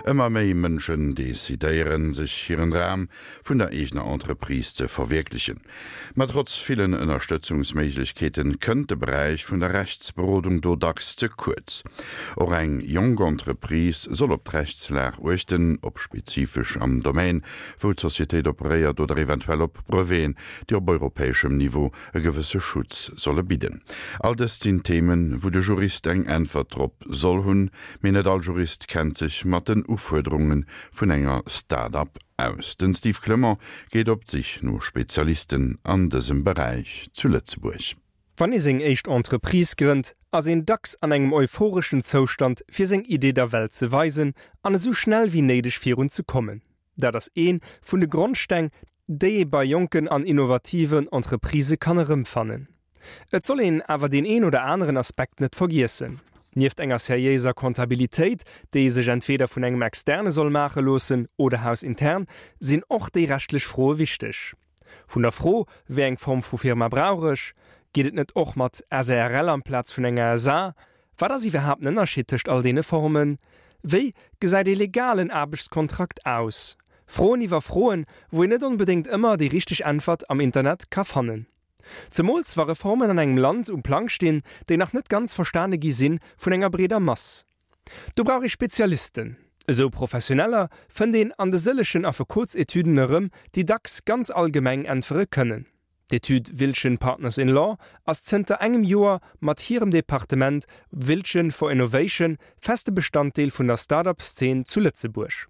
Ëmmer méi Mënschen decidéieren, sech hiren Dram vun der eegener Entreprise ze verwierklechen. Ma trotz villen Ënnerstëtzungsméiglechkeeten kënnt de Beräich vun der Rechtsberodung do dacks ze kuerz. Och eng jonk Entreprise soll op d'Rechtslag uechten, op spezifesch am Domaine, wou d'Societéit operéiert oder eventuell op Breveten, déi op europäeschem Niveau e gewësse Schutz solle bidden. All dëst sinn Themen, wou de Jurist eng Äntwert drop soll hunn. Mee net all Jurist kennt sech mat den Ufuerderunge vun enger Start-up aus. Den Steve Clement geet op d'Sich no Spezialisten an dësem Beräich zu Lëtzebuerg. Wann ee seng éischt Entreprise grënnt, ass een dacks an engem euphoreschen Zoustand fir seng Idee der Welt ze weisen an esou schnell wéi néideg virun ze kommen. Dat ass ee vun de Grondsteng, déi ee bei jonken an innovativen Entreprisë kann erëmfannen. Et soll een awer deen een oder aneren Aspekt net vergiessen. Nieft enger seriéiser Comptabilitéit, déi ee sech entweeder vun engem Externe soll maache loossen oder hausintern, sinn och déi rechtlech Froe wichteg. Vun der Fro, wéi eng Form vu Firma brauch ech, geet et net och mat SARL amplaz vun enger SA? Wat ass iwwerhaapt den Ënnerscheed tëscht all deene Formen? Wéi gesäit ee legalen Aarbechtskontrakt aus? Froen iwwer Froen, wou een net onbedéngt ëmmer déi richteg Äntwert am Internet ka fannen. Zemools wa Reformen an engem Land um Plang stinn, déi nach net ganz verstane gi si vun enger breeder Mass. Do brauch ee Spezialisten. Esou Professioneller fënnt een an de sëllegen Affekotsetüden erëm, déi dacks ganz allgemeng äntwere kënnen. D'Etüd Wiltgen Partners in Law ass zënter engem Joer mat hirem Departement Wiltgen for Innovation feste Bestanddeel vun der Start-up-Szene zu Lëtzebuerg.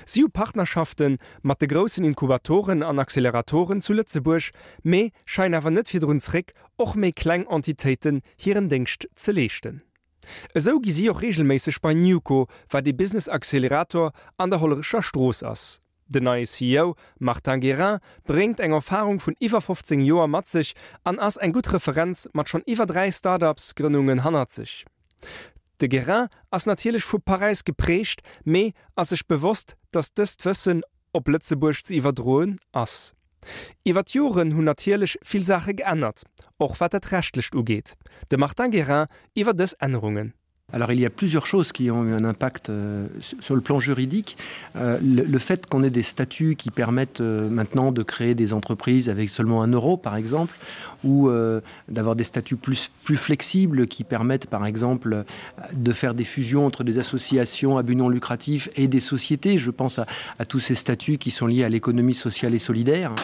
Si hu Partnerschafte mat de groussen Inkubatoren an Acceleratoren zu Lëtzebuerg, mee scheien awer net virdrun zréck, och méi kleng Entitéiten hiren Déngscht ze leeschten. Esou gi si och reegelméisseg bei Newco, wat ee Business Accelerator an der Hollerecher Strooss ass. Den neie CEO Martin Guérin bréngt eng Erfarung vun iwwer 15 Joer mat sech an ass eng gutt Referenz mat schonn iwwer 3 Start-ups-Grënnungen hannert sech. De Guérin ass natierlech vu Paräis geprägt, mee ass sech bewosst, datt dëst Wëssen op Lëtzebuerg ze iwwerdroen ass. Iwwer d'Joren hunn natierlech vill Saache geännert, och wat dat Rechtlecht ugeet. De Martin Guérin iwwer dës Ännerungen. Alors il y a plusieurs choses qui ont eu un impact euh, sur le plan juridique. Euh, le, le fait qu'on ait des statuts qui permettent euh, maintenant de créer des entreprises avec seulement un euro par exemple ou euh, d'avoir des statuts plus, plus flexibles qui permettent par exemple de faire des fusions entre des associations à but non lucratif et des sociétés. Je pense à, à tous ces statuts qui sont liés à l'économie sociale et solidaire.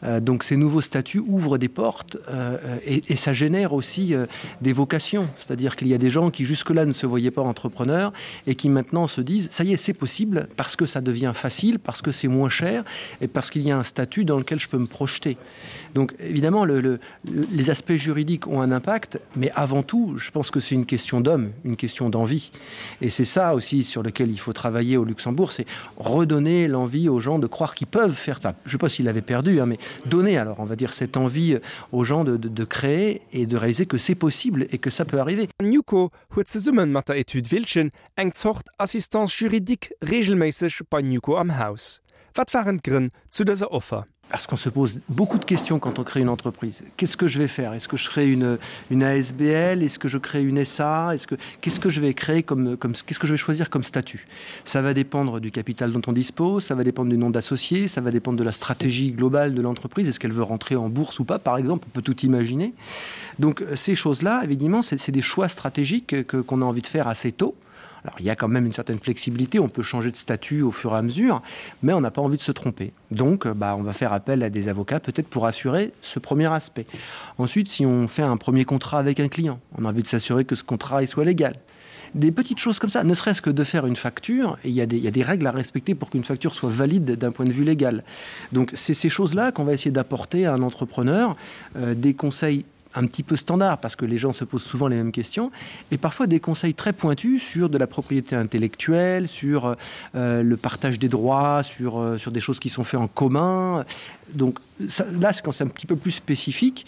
Euh, donc ces nouveaux statuts ouvrent des portes euh, et, et ça génère aussi euh, des vocations c'est à dire qu'il y a des gens qui jusque là ne se voyaient pas entrepreneurs et qui maintenant se disent ça y est c'est possible parce que ça devient facile parce que c'est moins cher et parce qu'il y a un statut dans lequel je peux me projeter donc évidemment le, le, les aspects juridiques ont un impact mais avant tout je pense que c'est une question d'homme une question d'envie et c'est ça aussi sur lequel il faut travailler au luxembourg c'est redonner l'envie aux gens de croire qu'ils peuvent faire ça je sais pas s'il avait perdu hein, mais donner alors on va dire cette envie aux gens de, de, de créer et de réaliser que c'est possible et que ça peut arriver. Newco huet zesumme mat der Etüd Wiltgen eng Zort Assistance juridique reegelméisseg bei Newco am Haus. Wat waren d'Grënn zu dëser Offer? Parce qu'on se pose beaucoup de questions quand on crée une entreprise. Qu'est-ce que je vais faire Est-ce que je crée une, une ASBL Est-ce que je crée une SA Est-ce que qu'est-ce que je vais créer comme, comme qu'est-ce que je vais choisir comme statut Ça va dépendre du capital dont on dispose, ça va dépendre du nom d'associés, ça va dépendre de la stratégie globale de l'entreprise, est-ce qu'elle veut rentrer en bourse ou pas par exemple, on peut tout imaginer. Donc ces choses-là, évidemment, c'est des choix stratégiques que qu'on a envie de faire assez tôt. Alors il y a quand même une certaine flexibilité, on peut changer de statut au fur et à mesure, mais on n'a pas envie de se tromper. Donc bah, on va faire appel à des avocats peut-être pour assurer ce premier aspect. Ensuite, si on fait un premier contrat avec un client, on a envie de s'assurer que ce contrat il soit légal. Des petites choses comme ça, ne serait-ce que de faire une facture, et il y, a des, il y a des règles à respecter pour qu'une facture soit valide d'un point de vue légal. Donc c'est ces choses-là qu'on va essayer d'apporter à un entrepreneur, euh, des conseils un petit peu standard parce que les gens se posent souvent les mêmes questions et parfois des conseils très pointus sur de la propriété intellectuelle, sur euh, le partage des droits, sur, euh, sur des choses qui sont faites en commun. Donc ça, là c'est quand c'est un petit peu plus spécifique,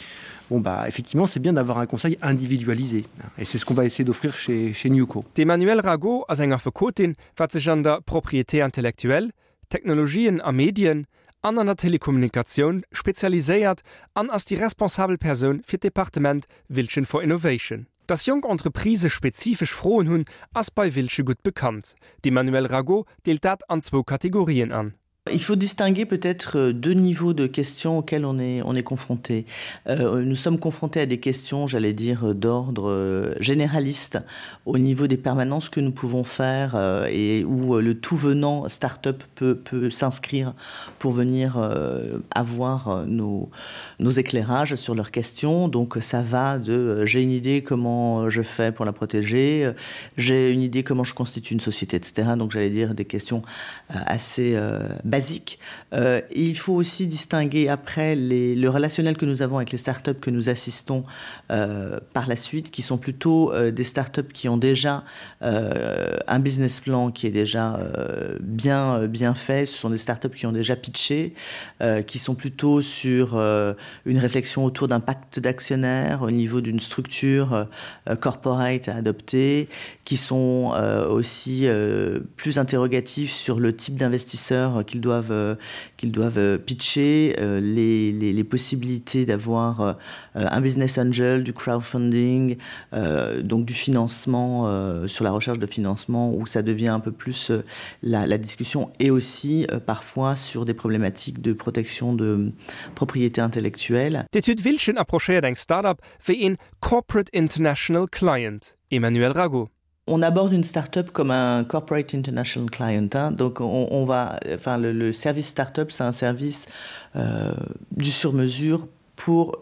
bon bah effectivement c'est bien d'avoir un conseil individualisé et c'est ce qu'on va essayer d'offrir chez, chez Newco. D'Emmanuelle Rago ass eng Affekotin, wat sech an der Propriété intellectuelle, Technologien a Medien an an der Telekommunikatioun spezialiséiert an ass déi responsabel Persoun fir d'Departement Wiltgen for Innovation. Dass jonk Entreprisë spezifesch Froen hunn, ass bei Wilsche gutt bekannt. D'Emmanuelle Ragot deelt dat an zwou Kategorien an. Il faut distinguer peut-être euh, deux niveaux de questions auxquelles on est, on est confronté. Euh, nous sommes confrontés à des questions, j'allais dire, d'ordre euh, généraliste au niveau des permanences que nous pouvons faire euh, et où euh, le tout venant start-up peut, peut s'inscrire pour venir euh, avoir euh, nos, nos éclairages sur leurs questions. Donc ça va de euh, j'ai une idée comment je fais pour la protéger, j'ai une idée comment je constitue une société, etc. Donc j'allais dire des questions euh, assez euh, basiques. Euh, il faut aussi distinguer après les, le relationnel que nous avons avec les startups que nous assistons euh, par la suite, qui sont plutôt euh, des startups qui ont déjà euh, un business plan qui est déjà euh, bien, euh, bien fait. Ce sont des startups qui ont déjà pitché, euh, qui sont plutôt sur euh, une réflexion autour d'un pacte d'actionnaires au niveau d'une structure euh, corporate à adopter, qui sont euh, aussi euh, plus interrogatifs sur le type d'investisseurs qu'ils doivent, euh, qu'ils doivent euh, pitcher, euh, les, les, les possibilités d'avoir euh, un business angel, du crowdfunding, euh, donc du financement euh, sur la recherche de financement où ça devient un peu plus euh, la, la discussion et aussi euh, parfois sur des problématiques de protection de propriété intellectuelle. D'Etüd Wilschen approchéiert eng Start-up wéi een Corporate International Client. Emmanuelle Ragot. On aborde une start-up comme un corporate international client hein. donc on, on va enfin le, le service start-up c'est un service euh, du sur mesure pour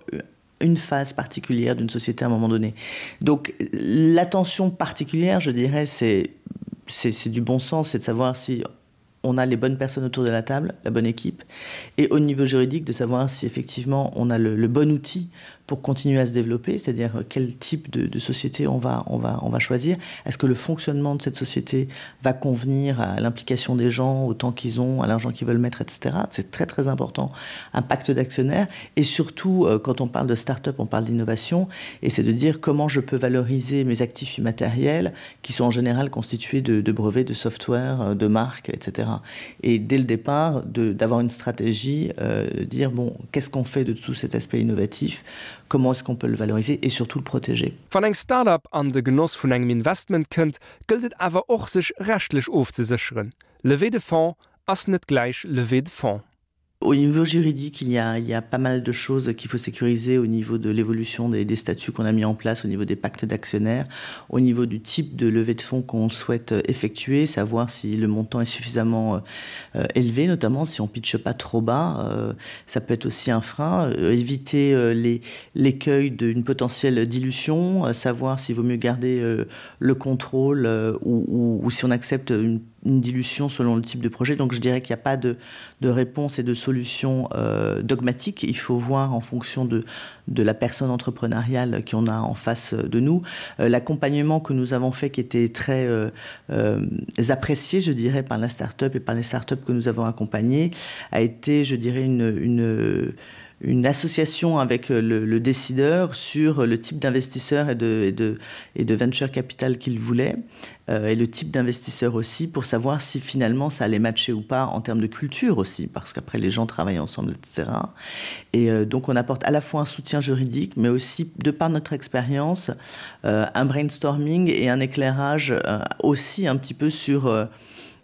une phase particulière d'une société à un moment donné. Donc l'attention particulière, je dirais, c'est c'est du bon sens, c'est de savoir si on a les bonnes personnes autour de la table, la bonne équipe, et au niveau juridique de savoir si effectivement on a le, le bon outil pour continuer à se développer, c'est-à-dire euh, quel type de, de société on va, on va, on va choisir. Est-ce que le fonctionnement de cette société va convenir à l'implication des gens, au temps qu'ils ont, à l'argent qu'ils veulent mettre, etc. C'est très très important. Un pacte d'actionnaires et surtout euh, quand on parle de start-up, on parle d'innovation et c'est de dire comment je peux valoriser mes actifs immatériels qui sont en général constitués de, de brevets, de software, euh, de marques, etc. Et dès le départ, d'avoir une stratégie, euh, de dire bon, qu'est-ce qu'on fait de tout cet aspect innovatif comment est-ce qu'on peut le valoriser et surtout le protéger. Wann eng Start-up an de Genoss vun engem Investment kënnt, gëllt et awer och sech rechtlech ofzesécheren. Levée de fonds ass net gläich Levée de fonds. Au niveau juridique, il y a, il y a pas mal de choses qu'il faut sécuriser au niveau de l'évolution des, des statuts qu'on a mis en place, au niveau des pactes d'actionnaires, au niveau du type de levée de fonds qu'on souhaite effectuer, savoir si le montant est suffisamment euh, élevé, notamment si on pitche pas trop bas, euh, ça peut être aussi un frein, euh, éviter euh, l'écueil d'une potentielle dilution, euh, savoir s'il vaut mieux garder euh, le contrôle euh, ou, ou, ou si on accepte une une dilution selon le type de projet. Donc je dirais qu'il n'y a pas de, de réponse et de solution euh, dogmatique. Il faut voir en fonction de, de la personne entrepreneuriale qu'on a en face de nous. Euh, L'accompagnement que nous avons fait qui était très euh, euh, apprécié, je dirais, par la start-up et par les start-up que nous avons accompagnées, a été, je dirais, une, une une association avec euh, le, le décideur sur le type d'investisseur et de, et de, et de venture capital qu'il voulait euh, et le type d'investisseur aussi pour savoir si finalement ça allait matcher ou pas en termes de culture aussi parce qu'après les gens travaillent ensemble etc et euh, donc on apporte à la fois un soutien juridique mais aussi de par notre expérience euh, un brainstorming et un éclairage euh, aussi un petit peu sur euh,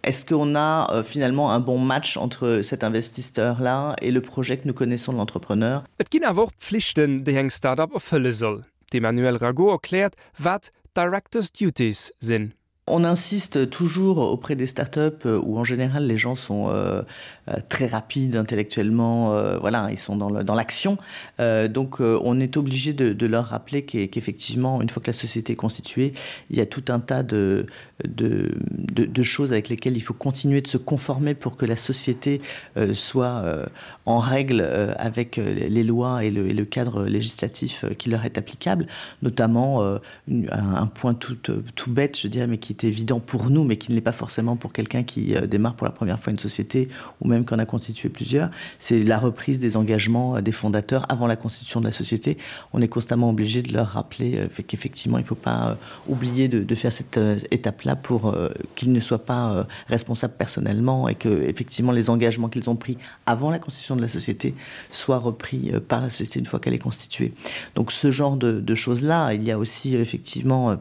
est-ce qu'on a euh, finalement un bon match entre cet investisseur là et le projet que nous connaissons de l'entrepreneur Et ginn awer och Pflichten, déi eng Start-up erfëlle soll. D'Emmanuelle Ragot erkläert, wat Directors Duties sinn. On insiste toujours auprès des startups euh, où en général les gens sont euh, euh, très rapides intellectuellement, euh, voilà, ils sont dans l'action. Euh, donc euh, on est obligé de, de leur rappeler qu'effectivement, qu une fois que la société est constituée, il y a tout un tas de, de, de, de choses avec lesquelles il faut continuer de se conformer pour que la société euh, soit euh, en règle euh, avec euh, les lois et le, et le cadre législatif euh, qui leur est applicable, notamment euh, une, un, un point tout, euh, tout bête, je dirais, mais qui qui est évident pour nous, mais qui ne l'est pas forcément pour quelqu'un qui euh, démarre pour la première fois une société ou même qu'on a constitué plusieurs, c'est la reprise des engagements euh, des fondateurs avant la constitution de la société. On est constamment obligé de leur rappeler euh, qu'effectivement, il ne faut pas euh, oublier de, de faire cette euh, étape-là pour euh, qu'ils ne soient pas euh, responsables personnellement et que effectivement les engagements qu'ils ont pris avant la constitution de la société soient repris euh, par la société une fois qu'elle est constituée. Donc ce genre de, de choses-là, il y a aussi effectivement euh,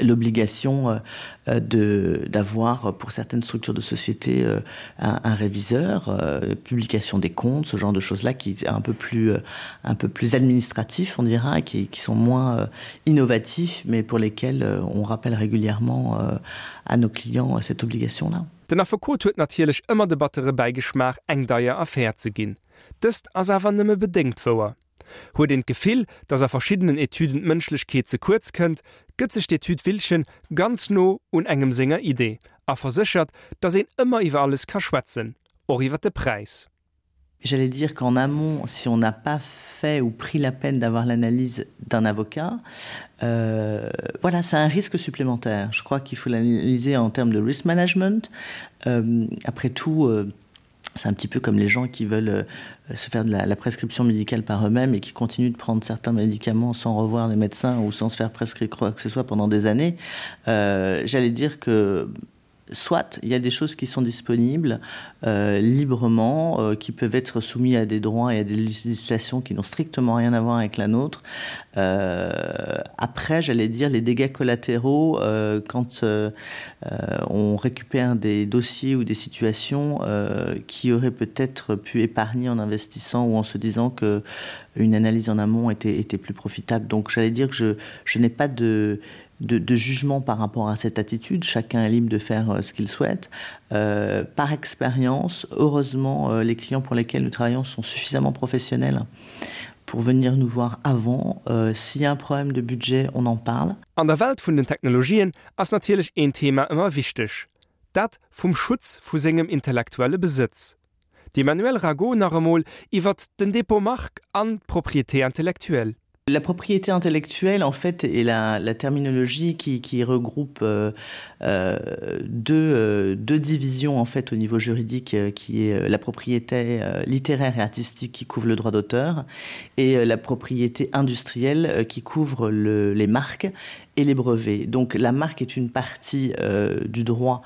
l'obligation euh, euh, de d'avoir pour certaines structures de société euh, un, un réviseur euh, publication des comptes ce genre de choses là qui est un peu plus euh, un peu plus administratif on dira qui, qui sont moins euh, innovatifs mais pour lesquels euh, on rappelle régulièrement euh, à nos clients euh, cette obligation là Den Affekot huet natierlech ëmmer de battere Bäigeschmaach eng deier Affär ze ginn. Dëst ass awer nëmme bedéngt wouer. Huet een d'Gefill, dass a verschiddenen Etüden d'Mënschlechkeet ze kuerz kënnt, gëtt sech d'Etüd Wilchen ganz no un engem senger Idee a verséchert, dass een ëmmer iwwer alles ka schwätzen, och iwwer de Präis. J'allais dire qu'en amont, si on n'a pas fait ou pris la peine d'avoir l'analyse d'un avocat, euh, voilà, c'est un risque supplémentaire. Je crois qu'il faut l'analyser en termes de risk management. Euh, après tout, euh, c'est un petit peu comme les gens qui veulent euh, se faire de la, la prescription médicale par eux-mêmes et qui continuent de prendre certains médicaments sans revoir les médecins ou sans se faire prescrire quoi que ce soit pendant des années. Euh, J'allais dire que soit il y a des choses qui sont disponibles euh, librement, euh, qui peuvent être soumis à des droits et à des législations qui n'ont strictement rien à voir avec la nôtre. Euh, après, j'allais dire les dégâts collatéraux euh, quand euh, euh, on récupère des dossiers ou des situations euh, qui auraient peut-être pu épargner en investissant ou en se disant que une analyse en amont était, était plus profitable. Donc j'allais dire que je, je n'ai pas de, de, de jugement par rapport à cette attitude. Chacun est libre de faire euh, ce qu'il souhaite. Euh, par expérience, heureusement, euh, les clients pour lesquels nous travaillons sont suffisamment professionnels pour venir nous voir avant. Euh, S'il y a un problème de budget, on en parle. An der Welt vun den Technologien ass natierlech een Thema ëmmer wichteg, dat vum Schutz vu sengem intellektuelle Besëtz. D'Emmanuelle Ragot nach emol iwwert den Dépôt marque an d'Propriété intellectuelle. La propriété intellectuelle en fait est la, la terminologie qui, qui regroupe euh, euh, deux, euh, deux divisions en fait au niveau juridique euh, qui est euh, la propriété euh, littéraire et artistique qui couvre le droit d'auteur et euh, la propriété industrielle euh, qui couvre le, les marques et les brevets. Donc la marque est une partie euh, du droit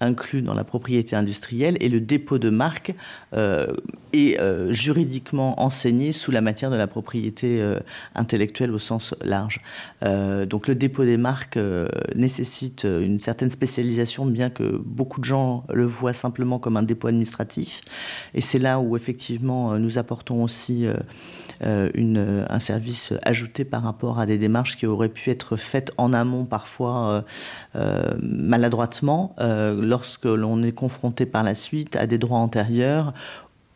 inclus dans la propriété industrielle et le dépôt de marque euh, est euh, juridiquement enseigné sous la matière de la propriété euh, intellectuelle au sens large. Euh, donc le dépôt des marques euh, nécessite euh, une certaine spécialisation, bien que beaucoup de gens le voient simplement comme un dépôt administratif. Et c'est là où effectivement euh, nous apportons aussi euh, euh, une, euh, un service ajouté par rapport à des démarches qui auraient pu être faites en amont parfois euh, euh, maladroitement euh, lorsque l'on est confronté par la suite à des droits antérieurs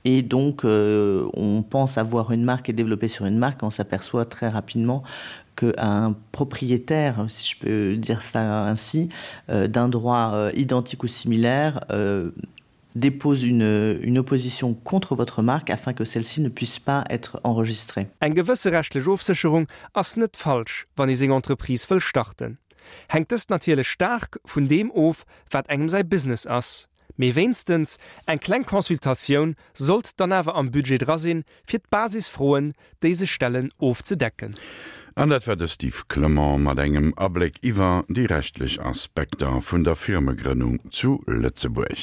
et donc euh, on pense avoir une marque et développer sur une marque on s'aperçoit très rapidement qu'un propriétaire si je peux dire ça ainsi euh, d'un droit euh, identique ou similaire euh, dépose une, une opposition contre votre marque afin que celle-ci ne puisse pas être enregistrée. Eng gewësse rechtlech Ofsécherung ass net falsch, wann ee seng Entreprise wëll starten. Hänkt dëst natierlech staark vun deem of, wat engem säi Business ass. Mee wéinstens eng kleng Consultatioun sollt dann awer am Budget dra sinn, fir d'Basisfroen, déi sech stellen, ofzedecken. An dat war de Steve Clement mat engem Abléck iwwer déi rechtlech Aspekter vun der Firmegrënnung zu Lëtzebuerg.